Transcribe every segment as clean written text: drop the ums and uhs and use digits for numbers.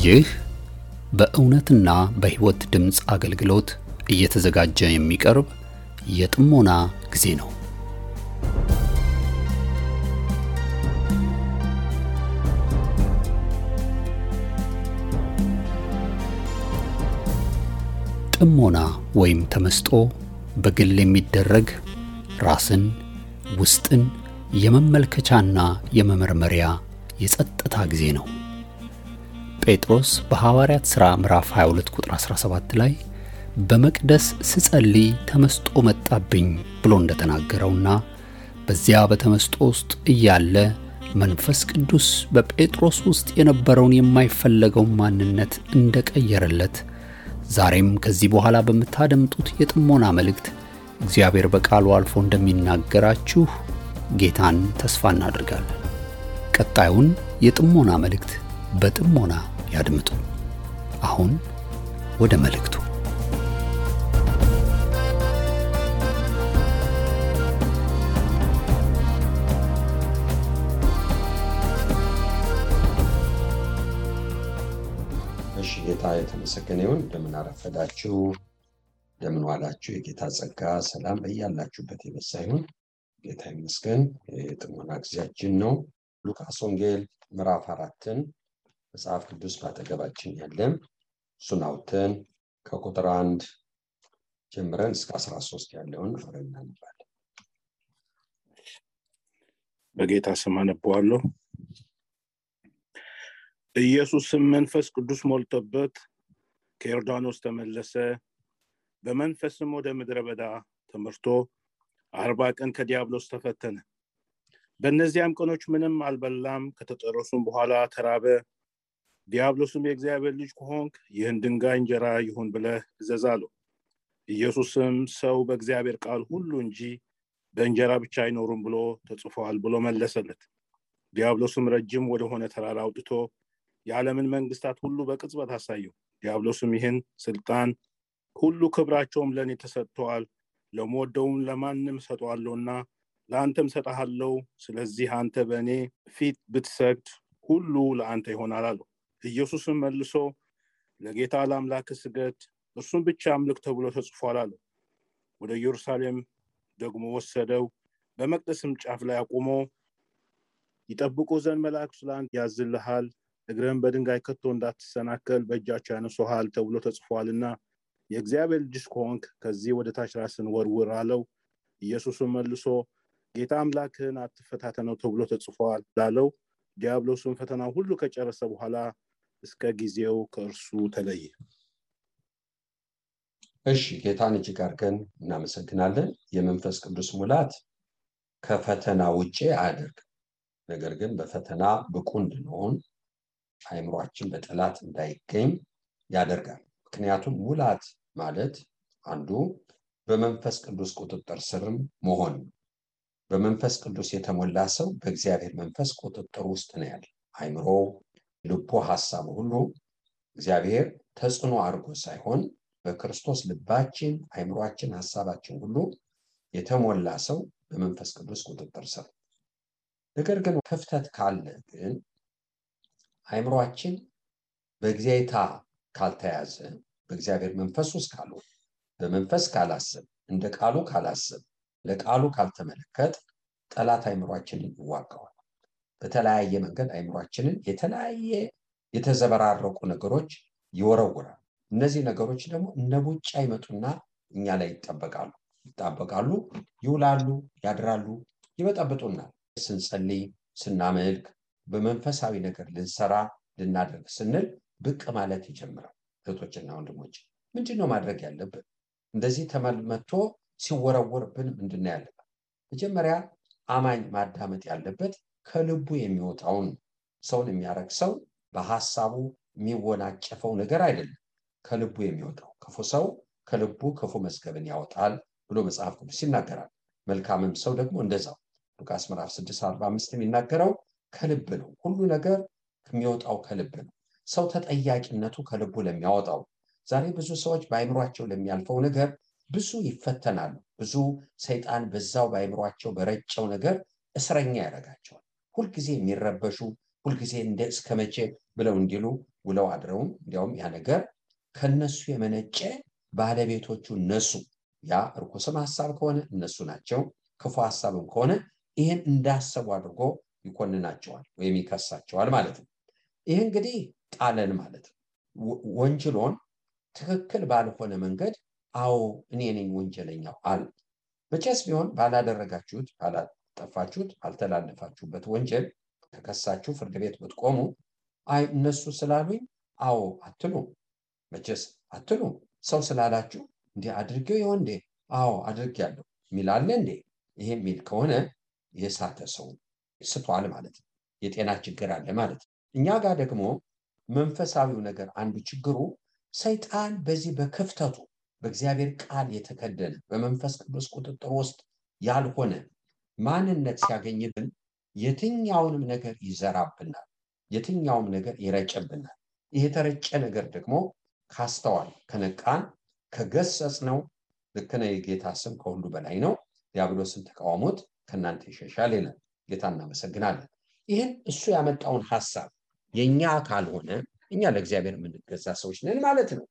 ይህ በእውነትና በሕይወት ድምጽ አገልግሎት እየተዘጋጀ የሚቀርብ የጥሞና ጊዜ ነው። ጥሞና ወይም ተመስጦ በግል የሚደረግ ራስን ውስጥን የመመልከቻና የመመርመሪያ የጸጥታ ጊዜ ነው። ጴጥሮስ በሐዋርያት ሥራ ምዕራፍ 22 ቁጥር 17 ላይ በመቅደስ ስጸልይ ተመስጦ መጣብኝ ብሎ እንደተናገረውና በዚያ በተመስጦ ውስጥ እያለ መንፈስ ቅዱስ በጴጥሮስ ውስጥ የነበረውን የማይፈለገው ማንነት እንደቀየረለት ዛሬም ከዚህ በኋላ በመታደምጡት የጥሞና መልእክት እግዚአብሔር በቃሉ አልፎ እንደሚናገራችሁ ጌታን ተስፋ እናደርጋለን። ቀጣዩን የጥሞና መልእክት በጥሞና ያድምጡ። አሁን ወደ መልእክቱ። እሺ፣ ጌታ የተመሰገነ ይሁን። እንደምን አረፈዳችሁ፣ እንደምን ዋላችሁ። የጌታ ጸጋ ሰላም በያላችሁበት ይበዛ ይሁን። ጌታ ይመስገን። የጥሞና ጊዜያችን ነው። ሉቃስ ወንጌል ምዕራፍ 4ን መጽሐፍ ቅዱስ ባጠገባችን ያለ እሱን አውጥተን ከቁጥር 1 ጀምረን እስከ 13 ያለውን አብረን እናነባለን። በጌታ ስም አነባዋለሁ። ኢየሱስም መንፈስ ቅዱስ ሞልቶበት ከዮርዳኖስ ተመለሰ። በመንፈስም ወደ ምድረ በዳ ተመርቶ 40 ቀን ከዲያብሎስ ተፈተነ። በእነዚያም ቀኖች ምንም አልበላም። ከተጠረሱም በኋላ ተራበ። ዲያብሎስም የእግዚአብሔር ልጅ ከሆንክ ይህን ድንጋይ እንጀራ ይሁን ብለህ እዘዝ አለው። ኢየሱስም ሰው በእግዚአብሔር ቃል ሁሉ እንጂ በእንጀራ ብቻ አይኖርም ብሎ ተጽፏል ብሎ መለሰለት። ዲያብሎስም ረጅም ወደሆነ ተራራ አውጥቶ የዓለምን መንግስታት ሁሉ በቅጽበት አሳየው። ዲያብሎስም ይህን ስልጣን ሁሉ ክብራቸውም ለእኔ ተሰጥተዋል፣ ለምወደውም ለማንም እሰጠዋለሁና ለአንተም እሰጥሃለሁ። ስለዚህ አንተ በእኔ ፊት ብትሰግድ ሁሉ ለአንተ ይሆናል አለው። ኢየሱስም መልሶ ለጌታ ለአምላክህ ስገድ፣ እርሱም ብቻ አምልክ ተብሎ ተጽፏል አለው። ወደ ኢየሩሳሌም ደግሞ ወሰደው። በመቅደስም ጫፍ ላይ አቁሞ ይጠብቁ ዘንድ መላእክቱ ለአንተ ያዝልሃል፣ እግርህን በድንጋይ ከቶ እንዳትሰናከል በእጃቸው ያነሱሃል ተብሎ ተጽፏልና የእግዚአብሔር ልጅ ከሆንክ ከዚህ ወደ ታች ራስን ወርውር አለው። ኢየሱስም መልሶ ጌታ አምላክህን አትፈታተነው ተብሎ ተጽፏል ላለው። ዲያብሎስም ፈተናው ሁሉ ከጨረሰ በኋላ እስከ ጊዜው ከእርሱ ተለየ። እሺ፣ ጌታን እጅግ አድርገን እናመሰግናለን። የመንፈስ ቅዱስ ሙላት ከፈተና ውጪ አያደርግም። ነገር ግን በፈተና ብቁ እንድንሆን አእምሯችን በጠላት እንዳይገኝ ያደርጋል። ምክንያቱም ሙላት ማለት አንዱ በመንፈስ ቅዱስ ቁጥጥር ስርም መሆን ነው። በመንፈስ ቅዱስ የተሞላ ሰው በእግዚአብሔር መንፈስ ቁጥጥር ውስጥ ነው ያለ። አእምሮ፣ ልቡ፣ ሐሳቡ ሁሉ እግዚአብሔር ተጽዕኖ አድርጎ ሳይሆን በክርስቶስ ልባችን፣ አእምሯችን፣ ሐሳባችን ሁሉ የተሞላ ሰው በመንፈስ ቅዱስ ቁጥጥር ስር። ነገር ግን ክፍተት ካለ ግን አእምሯችን በእግዚአታ ካልተያዘ፣ በእግዚአብሔር መንፈስ ውስጥ ካልሆነ፣ በመንፈስ ካላሰብ፣ እንደ ቃሉ ካላሰብ፣ ለቃሉ ካልተመለከት ጠላት አእምሯችንን ይዋጋዋል። በተለያየ መንገድ አእምሯችንን የተለያየ የተዘበራረቁ ነገሮች ይወረውራል። እነዚህ ነገሮች ደግሞ እነ ቡጫ ይመጡና እኛ ላይ ይጣበቃሉ፣ ይውላሉ፣ ያድራሉ፣ ይበጠብጡናል። ስንጸልይ፣ ስናመልክ፣ በመንፈሳዊ ነገር ልንሰራ ልናደርግ ስንል ብቅ ማለት ይጀምራል። እህቶችና ወንድሞች ምንድነው ማድረግ ያለብን? እንደዚህ ተመልመቶ ሲወረወርብን ምንድነው ያለበት? መጀመሪያ አማኝ ማዳመጥ ያለበት ከልቡ የሚወጣውን። ሰውን የሚያረክሰው በሐሳቡ የሚወናጨፈው ነገር አይደለም፣ ከልቡ የሚወጣው። ክፉ ሰው ከልቡ ክፉ መዝገብን ያወጣል ብሎ መጽሐፍ ቅዱስ ይናገራል። መልካምም ሰው ደግሞ እንደዛው። ሉቃስ ምዕራፍ 6:45 የሚናገረው ከልብ ነው። ሁሉ ነገር የሚወጣው ከልብ ነው። ሰው ተጠያቂነቱ ከልቡ ለሚያወጣው። ዛሬ ብዙ ሰዎች በአእምሯቸው ለሚያልፈው ነገር ብዙ ይፈተናሉ። ብዙ ሰይጣን በዛው በአእምሯቸው በረጨው ነገር እስረኛ ያደርጋቸዋል። ሁልጊዜ የሚረበሹ፣ ሁልጊዜ እንደ እስከመቼ ብለው እንዲሉ ውለው አድረውም እንዲያውም ያ ነገር ከነሱ የመነጨ ባለቤቶቹ እነሱ ያ ርኩስም ሐሳብ ከሆነ እነሱ ናቸው ክፉ ሐሳብም ከሆነ ይሄን እንዳሰቡ አድርጎ ይኮንናቸዋል ወይም ይከሳቸዋል ማለት ነው። ይሄ እንግዲህ ጣለን ማለት ነው። ወንጀሎን ትክክል ባልሆነ መንገድ አዎ እኔ ነኝ ወንጀለኛው አለ። መቼስ ቢሆን ባላደረጋችሁት ባላጠፋችሁት አልተላለፋችሁበት ወንጀል ተከሳችሁ ፍርድ ቤት ብትቆሙ አይ እነሱ ስላሉኝ አዎ አትሉ። መቼስ አትሉ። ሰው ስላላችሁ እንዴ አድርጌው ይሆን እንዴ አዎ አድርጌያለሁ ሚላለ እንዴ? ይሄ ሚል ከሆነ የሳተ ሰው ስቷል ማለት ነው። የጤና ችግር አለ ማለት ነው። እኛ ጋር ደግሞ መንፈሳዊው ነገር አንዱ ችግሩ ሰይጣን በዚህ በክፍተቱ በእግዚአብሔር ቃል የተከደነ በመንፈስ ቅዱስ ቁጥጥር ውስጥ ያልሆነ ማንነት ሲያገኝብን የትኛውንም ነገር ይዘራብናል፣ የትኛውም ነገር ይረጨብናል። ይሄ የተረጨ ነገር ደግሞ ካስተዋል ከነቃን ከገሰጽ ነው ልክ ነው። የጌታ ስም ከሁሉ በላይ ነው፣ ዲያብሎስን ተቃውሞት ከእናንተ ይሸሻል ይላል። ጌታ እናመሰግናለን። ይህን እሱ ያመጣውን ሐሳብ የኛ ካልሆነ እኛ ለእግዚአብሔር የምንገዛ ሰዎች ነን ማለት ነው።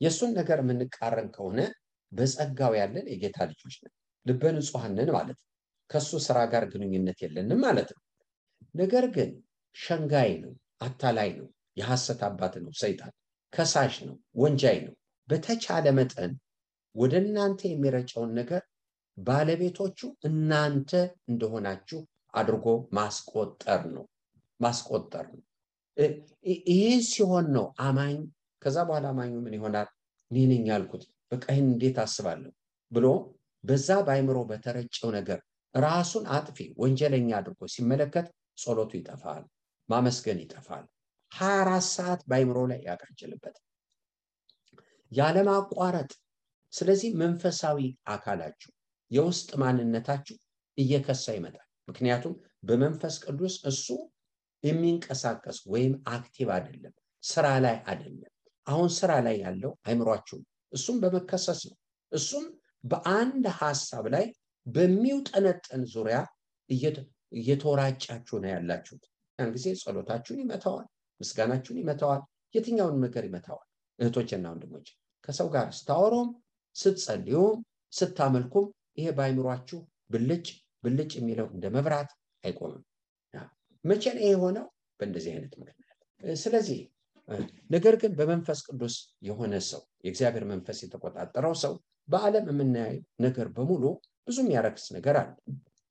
የሱን ነገር የምንቃረን ከሆነ በጸጋው ያለን የጌታ ልጆች ነን፣ ልበ ንጹሐን ነን ማለት ነው። ከሱ ስራ ጋር ግንኙነት የለንም ማለት ነው። ነገር ግን ሸንጋይ ነው፣ አታላይ ነው፣ የሐሰት አባት ነው፣ ሰይጣን ከሳሽ ነው፣ ወንጃይ ነው። በተቻለ መጠን ወደ እናንተ የሚረጨውን ነገር ባለቤቶቹ እናንተ እንደሆናችሁ አድርጎ ማስቆጠር ነው። ይህ ሲሆን ነው አማኝ ከዛ በኋላ አማኙ ምን ይሆናል? እኔ ነኝ ያልኩት በቃ ይህን እንዴት አስባለሁ ብሎ በዛ ባይምሮ በተረጨው ነገር ራሱን አጥፊ ወንጀለኛ አድርጎ ሲመለከት ጸሎቱ ይጠፋል፣ ማመስገን ይጠፋል። 24 ሰዓት ባይምሮ ላይ ያቃጭልበት ያለማቋረጥ። ስለዚህ መንፈሳዊ አካላችሁ የውስጥ ማንነታችሁ እየከሳ ይመጣል። ምክንያቱም በመንፈስ ቅዱስ እሱ የሚንቀሳቀስ ወይም አክቲቭ አይደለም፣ ስራ ላይ አይደለም። አሁን ስራ ላይ ያለው አይምሯችሁ እሱም በመከሰስ ነው። እሱም በአንድ ሐሳብ ላይ በሚውጠነጠን ዙሪያ እየተወራጫችሁ ነው ያላችሁት። ያን ጊዜ ጸሎታችሁን ይመታዋል፣ ምስጋናችሁን ይመታዋል፣ የትኛውን ነገር ይመታዋል። እህቶችና ወንድሞች ከሰው ጋር ስታወሩም ስትጸልዩም ስታመልኩም ይሄ ባይምሯችሁ ብልጭ የሚለው እንደ መብራት አይቆምም። መቼ ነው የሆነው? በእንደዚህ አይነት ምክንያት። ስለዚህ ነገር ግን በመንፈስ ቅዱስ የሆነ ሰው የእግዚአብሔር መንፈስ የተቆጣጠረው ሰው በዓለም የምናየው ነገር በሙሉ ብዙ የሚያረክስ ነገር አለ።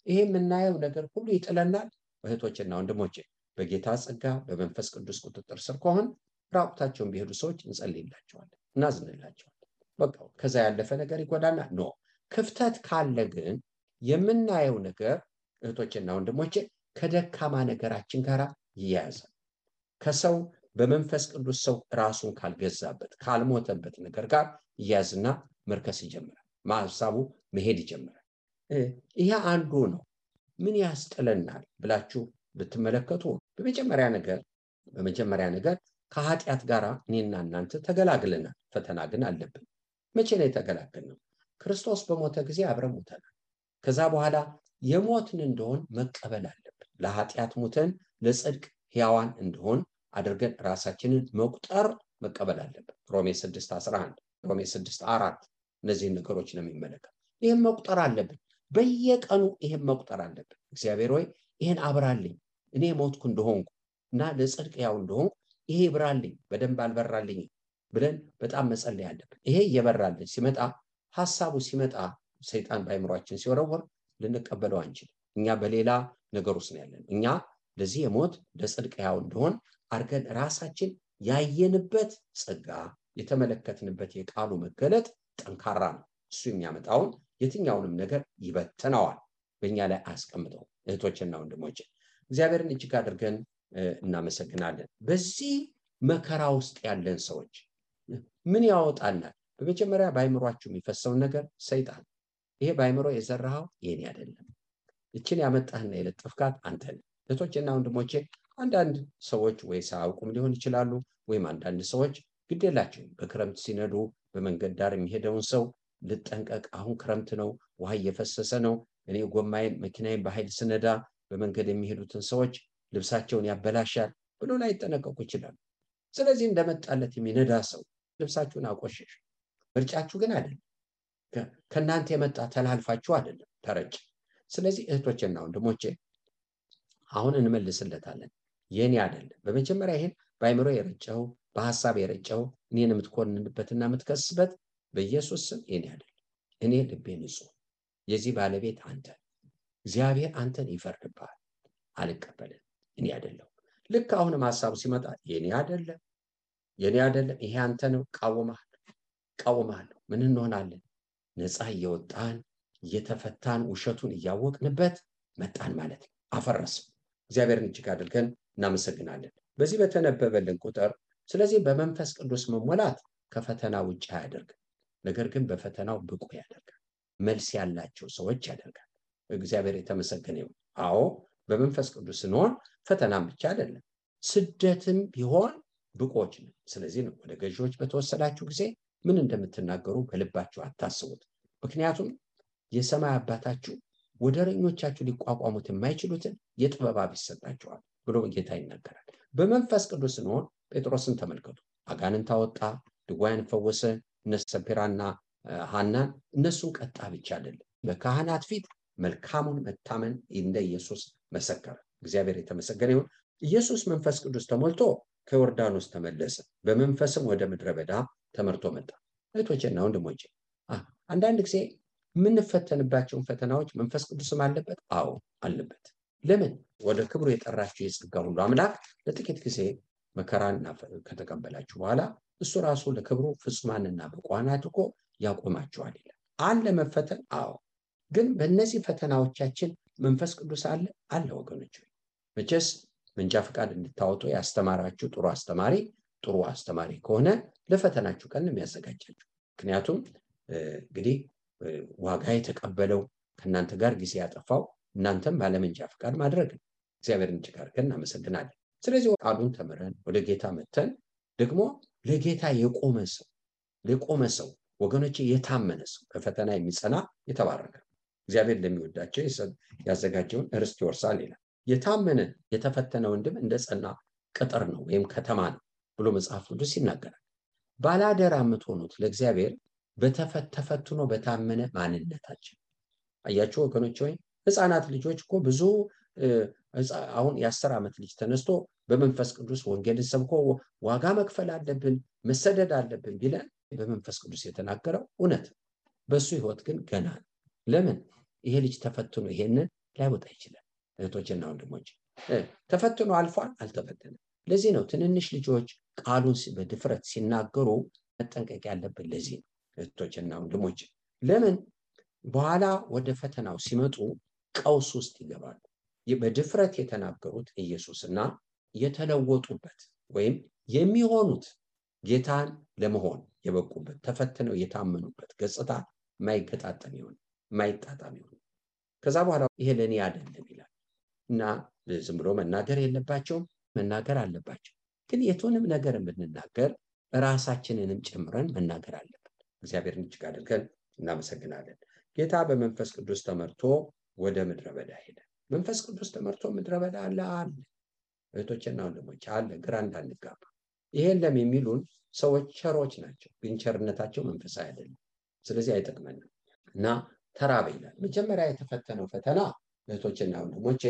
ይሄ የምናየው ነገር ሁሉ ይጥለናል። እህቶችና ወንድሞቼ በጌታ ጸጋ በመንፈስ ቅዱስ ቁጥጥር ስር ከሆን ራቁታቸውን ቢሄዱ ሰዎች እንጸልይላቸዋለን፣ እናዝንላቸዋለን። በቃ ከዛ ያለፈ ነገር ይጎዳና ኖ ክፍተት ካለ ግን የምናየው ነገር እህቶችና ወንድሞቼ ከደካማ ነገራችን ጋር ይያያዛል። ከሰው በመንፈስ ቅዱስ ሰው ራሱን ካልገዛበት ካልሞተበት ነገር ጋር ይያዝና መርከስ ይጀምራል፣ ማሳቡ መሄድ ይጀምራል። ይሄ አንዱ ነው። ምን ያስጥለናል ብላችሁ ብትመለከቱ በመጀመሪያ ነገር ከኃጢአት ጋር እኔና እናንተ ተገላግለናል። ፈተና ግን አለብን። መቼ ነው የተገላገልነው? ክርስቶስ በሞተ ጊዜ አብረን ሞተናል። ከዛ በኋላ የሞትን እንደሆን መቀበል አለብን። ለኃጢአት ሞተን ለጽድቅ ሕያዋን እንደሆን አድርገን ራሳችንን መቀበል አለብን። ሮሜ 6:11 ሮሜ 6:4 እነዚህን ነገሮች ነው የሚመለከት። ይህን መቁጠር አለብን። በየቀኑ ይህን መቁጠር አለብን። እግዚአብሔር ሆይ ይህን አብራልኝ፣ እኔ ሞትኩ እንደሆንኩ እና ለጽድቅ ሕያው እንደሆንኩ ይሄ ይብራልኝ፣ በደንብ አልበራልኝ ብለን በጣም መጸለይ አለብን። ይሄ እየበራልን ሲመጣ ሐሳቡ ሲመጣ ሰይጣን ባይምሯችን ሲወረወር ልንቀበለው አንችልም። እኛ በሌላ ነገር ውስጥ ነው ያለን። እኛ ለዚህ የሞት ለጽድቅ ሕያው እንደሆን አርገን ራሳችን ያየንበት ጸጋ የተመለከትንበት የቃሉ መገለጥ ጠንካራ ነው። እሱ የሚያመጣውን የትኛውንም ነገር ይበትነዋል፣ በእኛ ላይ አስቀምጠው። እህቶችና ወንድሞች እግዚአብሔርን እጅግ አድርገን እናመሰግናለን። በዚህ መከራ ውስጥ ያለን ሰዎች ምን ያወጣናል? በመጀመሪያ ባይምሯችሁ የሚፈሰውን ነገር ሰይጣን ይሄ ባይምሮ የዘራኸው የኔ አይደለም፣ እችን ያመጣህና የለጠፍካት አንተ ነህ። እህቶችና ወንድሞቼ አንዳንድ ሰዎች ወይ ሳያውቁም ሊሆን ይችላሉ፣ ወይም አንዳንድ ሰዎች ግድ የላቸውም። በክረምት ሲነዱ በመንገድ ዳር የሚሄደውን ሰው ልጠንቀቅ፣ አሁን ክረምት ነው፣ ውሃ እየፈሰሰ ነው፣ እኔ ጎማዬን መኪናዬን በኃይል ስነዳ በመንገድ የሚሄዱትን ሰዎች ልብሳቸውን ያበላሻል ብሎ ላይጠነቀቁ ይችላሉ። ስለዚህ እንደመጣለት የሚነዳ ሰው ልብሳችሁን አቆሸሽ። ምርጫችሁ ግን አይደለም። ከእናንተ የመጣ ተላልፋችሁ አይደለም ተረጭ። ስለዚህ እህቶቼና ወንድሞቼ አሁን እንመልስለታለን። የኔ አይደለም። በመጀመሪያ ይሄን በአይምሮ የረጨው በሐሳብ የረጨው እኔን የምትኮንንበትና የምትከስበት በኢየሱስ ስም የኔ አይደለም። እኔ ልቤ ንጹህ፣ የዚህ ባለቤት አንተ፣ እግዚአብሔር አንተን ይፈርድብሃል። አልቀበልም፣ እኔ አይደለም። ልክ አሁንም ሐሳቡ ሲመጣ የኔ አይደለም፣ የኔ አይደለም፣ ይሄ አንተ ነው፣ ቃወማለሁ። ምን እንሆናለን? ነፃ እየወጣን እየተፈታን ውሸቱን እያወቅንበት መጣን ማለት ነው። አፈረስም። እግዚአብሔርን እጅግ አድርገን እናመሰግናለን በዚህ በተነበበልን ቁጥር። ስለዚህ በመንፈስ ቅዱስ መሞላት ከፈተና ውጭ አያደርግም፣ ነገር ግን በፈተናው ብቁ ያደርጋል፣ መልስ ያላቸው ሰዎች ያደርጋል። እግዚአብሔር የተመሰገነ ይሁን። አዎ በመንፈስ ቅዱስ ስንሆን ፈተናም ብቻ አይደለም፣ ስደትም ቢሆን ብቆች ነው። ስለዚህ ነው ወደ ገዢዎች በተወሰዳችሁ ጊዜ ምን እንደምትናገሩ በልባችሁ አታስቡት፣ ምክንያቱም የሰማይ አባታችሁ ወደረኞቻችሁ ሊቋቋሙት የማይችሉትን የጥበብ ይሰጣቸዋል ብሎ ጌታ ይናገራል። በመንፈስ ቅዱስ ስንሆን ጴጥሮስን ተመልከቱ። አጋንንት አወጣ፣ ድውያንን ፈወሰ። እነ ሰጲራና ሐናን እነሱን ቀጣ ብቻ አይደለም፣ በካህናት ፊት መልካሙን መታመን እንደ ኢየሱስ መሰከረ። እግዚአብሔር የተመሰገነ ይሁን። ኢየሱስ መንፈስ ቅዱስ ተሞልቶ ከዮርዳኖስ ተመለሰ፣ በመንፈስም ወደ ምድረ በዳ ተመርቶ መጣ። እህቶቼና ወንድሞቼ አንዳንድ ጊዜ የምንፈተንባቸውን ፈተናዎች መንፈስ ቅዱስም አለበት። አዎ አለበት። ለምን? ወደ ክብሩ የጠራችሁ የጸጋ ሁሉ አምላክ ለጥቂት ጊዜ መከራን ከተቀበላችሁ በኋላ እሱ ራሱ ለክብሩ ፍጹማንና ብቁዓን አድርጎ ያቆማችኋል ይላል። አለ መፈተን። አዎ። ግን በእነዚህ ፈተናዎቻችን መንፈስ ቅዱስ አለ ወገኖች። መቼስ መንጃ ፈቃድ እንድታወጡ ያስተማራችሁ ጥሩ አስተማሪ ከሆነ ለፈተናችሁ ቀን የሚያዘጋጃችሁ። ምክንያቱም እንግዲህ ዋጋ የተቀበለው ከእናንተ ጋር ጊዜ ያጠፋው እናንተም ባለመንጃ ፈቃድ ማድረግ ነው። እግዚአብሔርን እጅግ አድርገን እናመሰግናለን። ስለዚህ ቃሉን ተምረን ወደ ጌታ መተን ደግሞ ለጌታ የቆመ ሰው ወገኖቼ፣ የታመነ ሰው በፈተና የሚጸና የተባረከ እግዚአብሔር ለሚወዳቸው ያዘጋጀውን ርስት ይወርሳል ይላል። የታመነ የተፈተነ ወንድም እንደ ጸና ቅጥር ነው ወይም ከተማ ነው ብሎ መጽሐፍ ቅዱስ ይናገራል። ባላደራ የምትሆኑት ለእግዚአብሔር ተፈትኖ በታመነ ማንነታችን። አያችሁ ወገኖች፣ ወይ ህፃናት ልጆች እኮ ብዙ አሁን የ10 ዓመት ልጅ ተነስቶ በመንፈስ ቅዱስ ወንጌልን ሰብኮ ዋጋ መክፈል አለብን መሰደድ አለብን ቢለን በመንፈስ ቅዱስ የተናገረው እውነት፣ በሱ ህይወት ግን ገና ነው። ለምን? ይሄ ልጅ ተፈትኖ ይሄንን ላይወጣ ይችላል። እህቶችና ወንድሞች ተፈትኖ አልፏል፣ አልተፈተነም። ለዚህ ነው ትንንሽ ልጆች ቃሉን በድፍረት ሲናገሩ መጠንቀቅ ያለብን። ለዚህ ነው እህቶችና ወንድሞች። ለምን? በኋላ ወደ ፈተናው ሲመጡ ቀውስ ውስጥ ይገባሉ። በድፍረት የተናገሩት ኢየሱስና የተለወጡበት ወይም የሚሆኑት ጌታን ለመሆን የበቁበት ተፈትነው የታመኑበት ገጽታ ማይገጣጠም ይሆን ማይጣጣም ይሆን። ከዛ በኋላ ይሄ ለኔ አይደለም ይላል እና ዝም ብሎ መናገር የለባቸውም፣ መናገር አለባቸው። ግን የቱንም ነገር ብንናገር ራሳችንንም ጨምረን መናገር አለብን። እግዚአብሔርን እጅግ አድርገን እናመሰግናለን። ጌታ በመንፈስ ቅዱስ ተመርቶ ወደ ምድረ በዳ ሄደ። መንፈስ ቅዱስ ተመርቶ ምድረ በዳ አለ። እህቶችና ወንድሞች አለ። ግራ እንዳንጋባ። ይሄን የሚሉን ሰዎች ቸሮች ናቸው፣ ግን ቸርነታቸው መንፈሳዊ አይደለም። ስለዚህ አይጠቅመንም እና ተራበ ይላል። መጀመሪያ የተፈተነው ፈተና እህቶችና ወንድሞቼ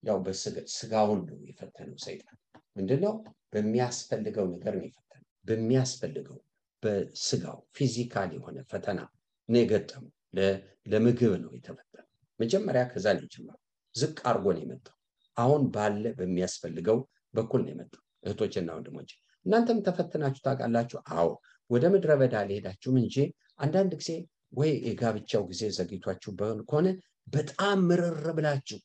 ያው በስጋውን ነው የፈተነው ሰይጣን። ምንድነው? በሚያስፈልገው ነገር ነው የፈተነው። በሚያስፈልገው በስጋው ፊዚካል የሆነ ፈተና ነው የገጠመው። ለምግብ ነው የተፈተነው መጀመሪያ። ከዛ ነው የጀመረው። ዝቅ አርጎ ነው የመጣው። አሁን ባለ በሚያስፈልገው በኩል ነው የመጣው። እህቶችና ወንድሞቼ እናንተም ተፈትናችሁ ታውቃላችሁ? አዎ። ወደ ምድረ በዳ ሊሄዳችሁም እንጂ አንዳንድ ጊዜ ወይ የጋብቻው ጊዜ ዘግይቷችሁ ከሆነ በጣም ምርር ብላችሁ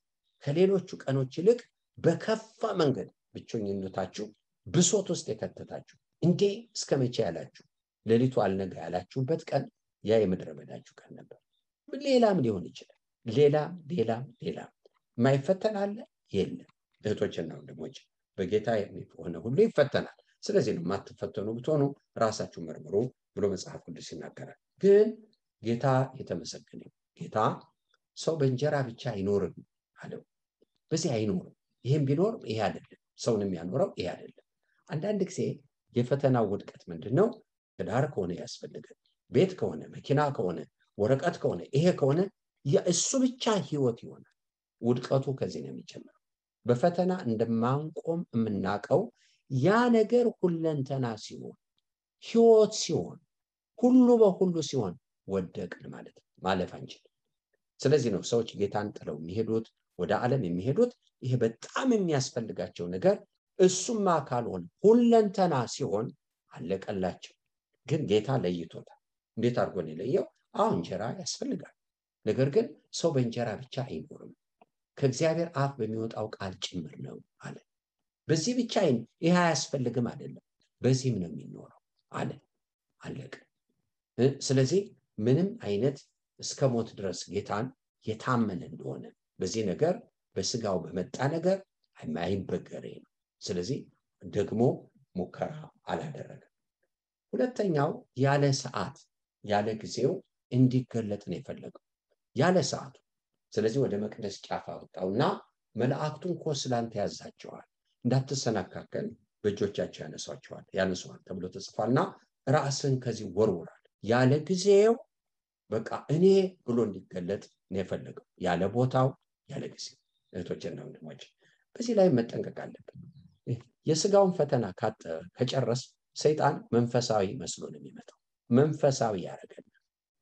ከሌሎቹ ቀኖች ይልቅ በከፋ መንገድ ብቸኝነታችሁ ብሶት ውስጥ የከተታችሁ እንዴ እስከ መቼ ያላችሁ ሌሊቱ አልነጋ ያላችሁበት ቀን ያ የምድረ በዳችሁ ቀን ነበር። ሌላም ሊሆን ይችላል። ሌላም የማይፈተን አለ? የለም። እህቶችና ወንድሞች በጌታ የሚሆነ ሁሉ ይፈተናል። ስለዚህ ነው የማትፈተኑ ብትሆኑ ራሳችሁ መርምሩ ብሎ መጽሐፍ ቅዱስ ይናገራል። ግን ጌታ የተመሰገነ ጌታ ሰው በእንጀራ ብቻ አይኖርም አለው። በዚህ አይኖርም። ይሄም ቢኖር ይሄ አይደለም፣ ሰውንም ያኖረው ይሄ አይደለም። አንዳንድ ጊዜ የፈተናው ውድቀት ምንድነው? ትዳር ከሆነ ያስፈልጋል፣ ቤት ከሆነ፣ መኪና ከሆነ፣ ወረቀት ከሆነ፣ ይሄ ከሆነ እሱ ብቻ ህይወት ይሆናል። ውድቀቱ ከዚህ ነው የሚጀምረው። በፈተና እንደማንቆም የምናውቀው ያ ነገር ሁለንተና ሲሆን፣ ህይወት ሲሆን፣ ሁሉ በሁሉ ሲሆን ወደቅን ማለት ነው። ማለፍ አንችልም። ስለዚህ ነው ሰዎች ጌታን ጥለው የሚሄዱት፣ ወደ ዓለም የሚሄዱት። ይሄ በጣም የሚያስፈልጋቸው ነገር እሱማ ካልሆነ ሁለንተና ሲሆን አለቀላቸው። ግን ጌታ ለይቶታል። እንዴት አድርጎ ነው የለየው? አሁን እንጀራ ያስፈልጋል። ነገር ግን ሰው በእንጀራ ብቻ አይኖርም፣ ከእግዚአብሔር አፍ በሚወጣው ቃል ጭምር ነው አለ። በዚህ ብቻ ይሄ አያስፈልግም አይደለም፣ በዚህም ነው የሚኖረው አለ። አለቀ። ስለዚህ ምንም አይነት እስከ ሞት ድረስ ጌታን የታመነ እንደሆነ በዚህ ነገር በስጋው በመጣ ነገር አይበገሬ ነው። ስለዚህ ደግሞ ሙከራ አላደረገም። ሁለተኛው ያለ ሰዓት ያለ ጊዜው እንዲገለጥ ነው የፈለገው፣ ያለ ሰዓቱ። ስለዚህ ወደ መቅደስ ጫፍ አወጣውና መላእክቱን እኮ ስላንተ ያዛቸዋል፣ እንዳትሰናካከል በእጆቻቸው ያነሷል ተብሎ ተጽፏልና ራስን ከዚህ ወርውራል። ያለ ጊዜው በቃ እኔ ብሎ እንዲገለጥ ነው የፈለገው፣ ያለ ቦታው ያለ ጊዜው። እህቶችና ወንድሞች በዚህ ላይ መጠንቀቅ አለብን። የስጋውን ፈተና ከጨረስ ሰይጣን መንፈሳዊ መስሎ ነው የሚመጣው። መንፈሳዊ ያደርገናል፣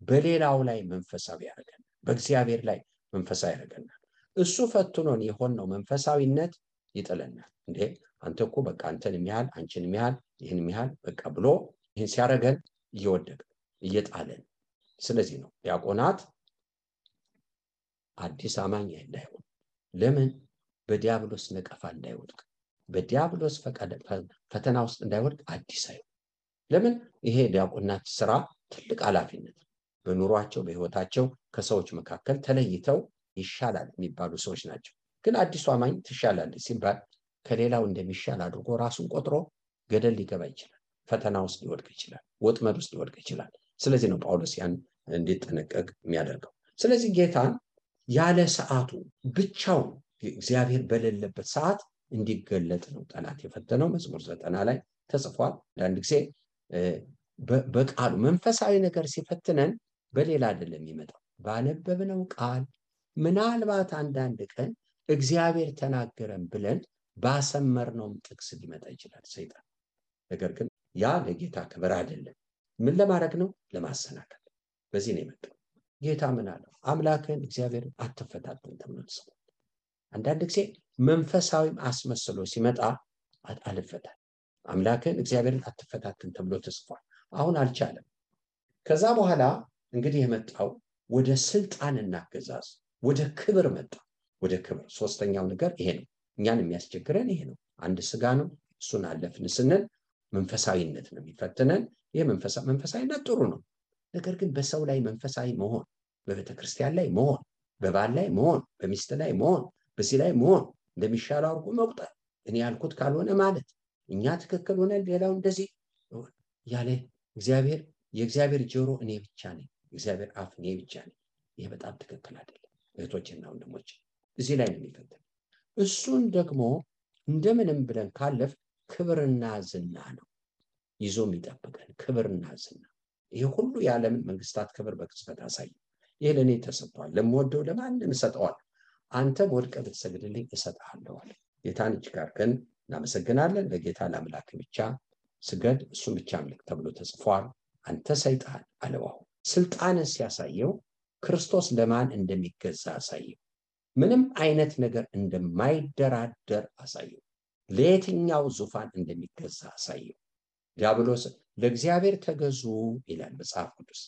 በሌላው ላይ መንፈሳዊ ያደርገናል፣ በእግዚአብሔር ላይ መንፈሳዊ ያደርገናል። እሱ ፈትኖን የሆነው መንፈሳዊነት ይጥለናል። እንዴ አንተ እኮ በቃ አንተን የሚያህል አንቺን የሚያህል ይህን የሚያህል በቃ ብሎ ይህን ሲያደርገን እየወደቀ እየጣለን። ስለዚህ ነው ዲያቆናት አዲስ አማኝ እንዳይሆን፣ ለምን? በዲያብሎስ ነቀፋ እንዳይወድቅ፣ በዲያብሎስ ፈተና ውስጥ እንዳይወድቅ አዲስ አይሆን። ለምን? ይሄ ዲያቆናት ስራ ትልቅ ኃላፊነት ነው። በኑሯቸው በህይወታቸው ከሰዎች መካከል ተለይተው ይሻላል የሚባሉ ሰዎች ናቸው። ግን አዲሱ አማኝ ትሻላለች ሲባል ከሌላው እንደሚሻል አድርጎ ራሱን ቆጥሮ ገደል ሊገባ ይችላል፣ ፈተና ውስጥ ሊወድቅ ይችላል፣ ወጥመድ ውስጥ ሊወድቅ ይችላል። ስለዚህ ነው ጳውሎስ ያን እንዲጠነቀቅ የሚያደርገው። ስለዚህ ጌታን ያለ ሰዓቱ ብቻውን እግዚአብሔር በሌለበት ሰዓት እንዲገለጥ ነው ጠላት የፈተነው። መዝሙር 90 ላይ ተጽፏል። አንዳንድ ጊዜ በቃሉ መንፈሳዊ ነገር ሲፈትነን በሌላ አይደለም የሚመጣው፣ ባነበብነው ቃል ምናልባት አንዳንድ ቀን እግዚአብሔር ተናገረን ብለን ባሰመርነውም ጥቅስ ሊመጣ ይችላል ሰይጣን። ነገር ግን ያ ለጌታ ክብር አይደለም። ምን ለማድረግ ነው? ለማሰናከል። በዚህ ነው የመጣው። ጌታ ምን አለው? አምላክን እግዚአብሔር አትፈታተን ተብሎ ተጽፏል። አንዳንድ ጊዜ መንፈሳዊም አስመስሎ ሲመጣ አልፈታም፣ አምላክን እግዚአብሔርን አትፈታተን ተብሎ ተጽፏል። አሁን አልቻለም። ከዛ በኋላ እንግዲህ የመጣው ወደ ስልጣንና አገዛዝ ወደ ክብር መጣ። ወደ ክብር። ሶስተኛው ነገር ይሄ ነው። እኛን የሚያስቸግረን ይሄ ነው። አንድ ስጋ ነው፣ እሱን አለፍን ስንል መንፈሳዊነት ነው የሚፈትነን። ይሄ መንፈሳዊነት ጥሩ ነው። ነገር ግን በሰው ላይ መንፈሳዊ መሆን፣ በቤተክርስቲያን ላይ መሆን፣ በባል ላይ መሆን፣ በሚስት ላይ መሆን፣ በዚህ ላይ መሆን፣ እንደሚሻለው አድርጎ መቁጠር፣ እኔ ያልኩት ካልሆነ ማለት፣ እኛ ትክክል ሆነ ሌላው እንደዚህ ያለ የእግዚአብሔር ጆሮ እኔ ብቻ ነኝ፣ እግዚአብሔር አፍ እኔ ብቻ ነኝ። ይሄ በጣም ትክክል አይደለም እህቶችና ወንድሞች። እዚህ ላይ ነው የሚፈተን። እሱን ደግሞ እንደምንም ብለን ካለፍ ክብርና ዝና ነው ይዞ የሚጠብቀን፣ ክብርና ዝና። ይሄ ሁሉ የዓለምን መንግስታት ክብር በቅጽበት አሳይ። ይሄ ለእኔ ተሰጥቷል፣ ለምወደው ለማንም እሰጠዋለሁ፣ አንተም ወድቀህ ብትሰግድልኝ እሰጥሃለሁ አለ። ጌታን እጅግ አድርገን እናመሰግናለን። ለጌታ ለአምላክ ብቻ ስገድ፣ እሱም ብቻ አምልክ ተብሎ ተጽፏል። አንተ ሰይጣን አለው። አሁን ስልጣንን ሲያሳየው ክርስቶስ ለማን እንደሚገዛ አሳየው። ምንም አይነት ነገር እንደማይደራደር አሳየው። ለየትኛው ዙፋን እንደሚገዛ አሳየው። ዲያብሎስ ለእግዚአብሔር ተገዙ ይላል መጽሐፍ ቅዱስ።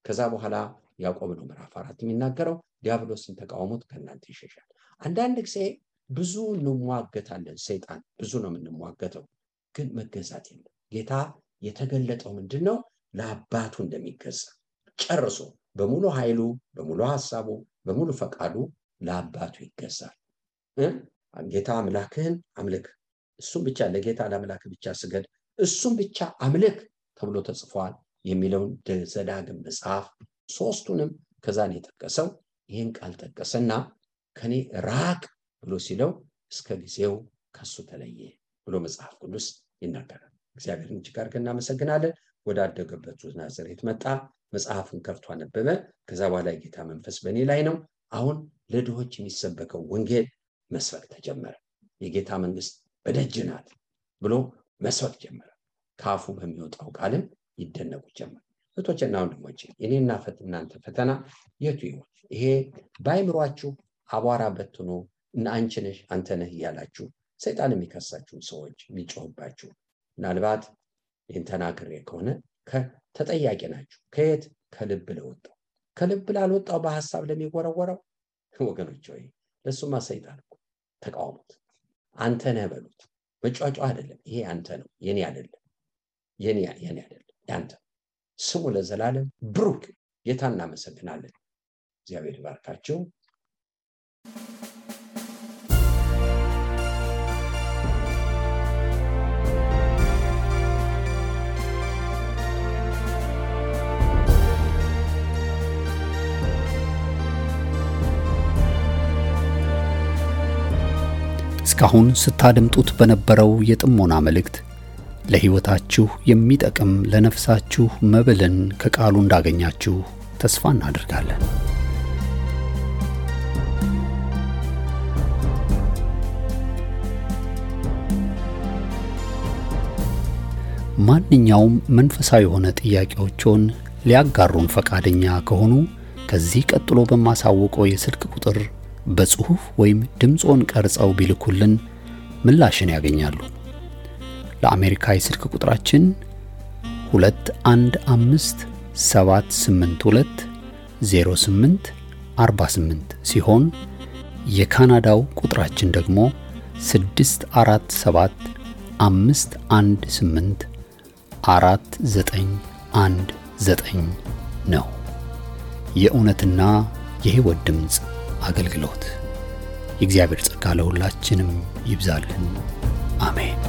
ከዛ በኋላ ያዕቆብ ነው ምዕራፍ 4 የሚናገረው ዲያብሎስን ተቃውሞት ከእናንተ ይሸሻል። አንዳንድ ጊዜ ብዙ እንሟገታለን፣ ሰይጣን ብዙ ነው የምንሟገተው፣ ግን መገዛት የለም። ጌታ የተገለጠው ምንድነው? ለአባቱ እንደሚገዛ ጨርሶ በሙሉ ኃይሉ፣ በሙሉ ሐሳቡ፣ በሙሉ ፈቃዱ ለአባቱ ይገዛል። ጌታ አምላክህን አምልክ፣ እሱም ብቻ ለጌታ ለአምላክ ብቻ ስገድ፣ እሱም ብቻ አምልክ ተብሎ ተጽፏል የሚለውን ዘዳግም መጽሐፍ ሶስቱንም ከዛን የጠቀሰው ይህን ቃል ጠቀሰና ከኔ ራቅ ብሎ ሲለው እስከ ጊዜው ከሱ ተለየ ብሎ መጽሐፍ ቅዱስ ይናገራል። እግዚአብሔርን እጅግ አድርገን እናመሰግናለን። ወዳደገበት ናዝሬት መጣ፣ መጽሐፍን ከፍቶ አነበበ። ከዛ በኋላ የጌታ መንፈስ በእኔ ላይ ነው። አሁን ለድሆች የሚሰበከው ወንጌል መስበክ ተጀመረ። የጌታ መንግስት በደጅ ናት ብሎ መስበክ ጀመረ። ካፉ በሚወጣው ቃልም ይደነቁ ጀመር። እህቶችና ወንድሞቼ እኔና እናንተ ፈተና የቱ ይሆን? ይሄ በአይምሯችሁ አቧራ በትኖ እና አንቺ ነሽ አንተ ነህ እያላችሁ ሰይጣን የሚከሳችሁ ሰዎች የሚጮህባችሁ፣ ምናልባት ይህን ተናግሬ ከሆነ ተጠያቂ ናችሁ። ከየት? ከልብ ለወጣው። ከልብ ላልወጣው በሐሳብ ለሚወረወረው ወገኖች ሆይ ለሱማ ሰይጣን እኮ ተቃውሙት። አንተ ነህ በሉት። መጫጫ አይደለም። ይሄ አንተ ነው፣ የኔ አይደለም። የኔ አይደለም፣ ያንተ። ስሙ ለዘላለም ብሩክ። ጌታ እናመሰግናለን። እግዚአብሔር ይባርካችሁ። እስካሁን ስታደምጡት በነበረው የጥሞና መልእክት ለሕይወታችሁ የሚጠቅም ለነፍሳችሁ መብልን ከቃሉ እንዳገኛችሁ ተስፋ እናደርጋለን። ማንኛውም መንፈሳዊ የሆነ ጥያቄዎችን ሊያጋሩን ፈቃደኛ ከሆኑ ከዚህ ቀጥሎ በማሳወቀው የስልክ ቁጥር በጽሁፍ ወይም ድምጾን ቀርጸው ቢልኩልን ምላሽን ያገኛሉ። ለአሜሪካ የስልክ ቁጥራችን 2157820848 ሲሆን የካናዳው ቁጥራችን ደግሞ 6475184919 ነው። የእውነትና የሕይወት ድምጽ አገልግሎት። የእግዚአብሔር ጸጋ ለሁላችንም ይብዛልን። አሜን።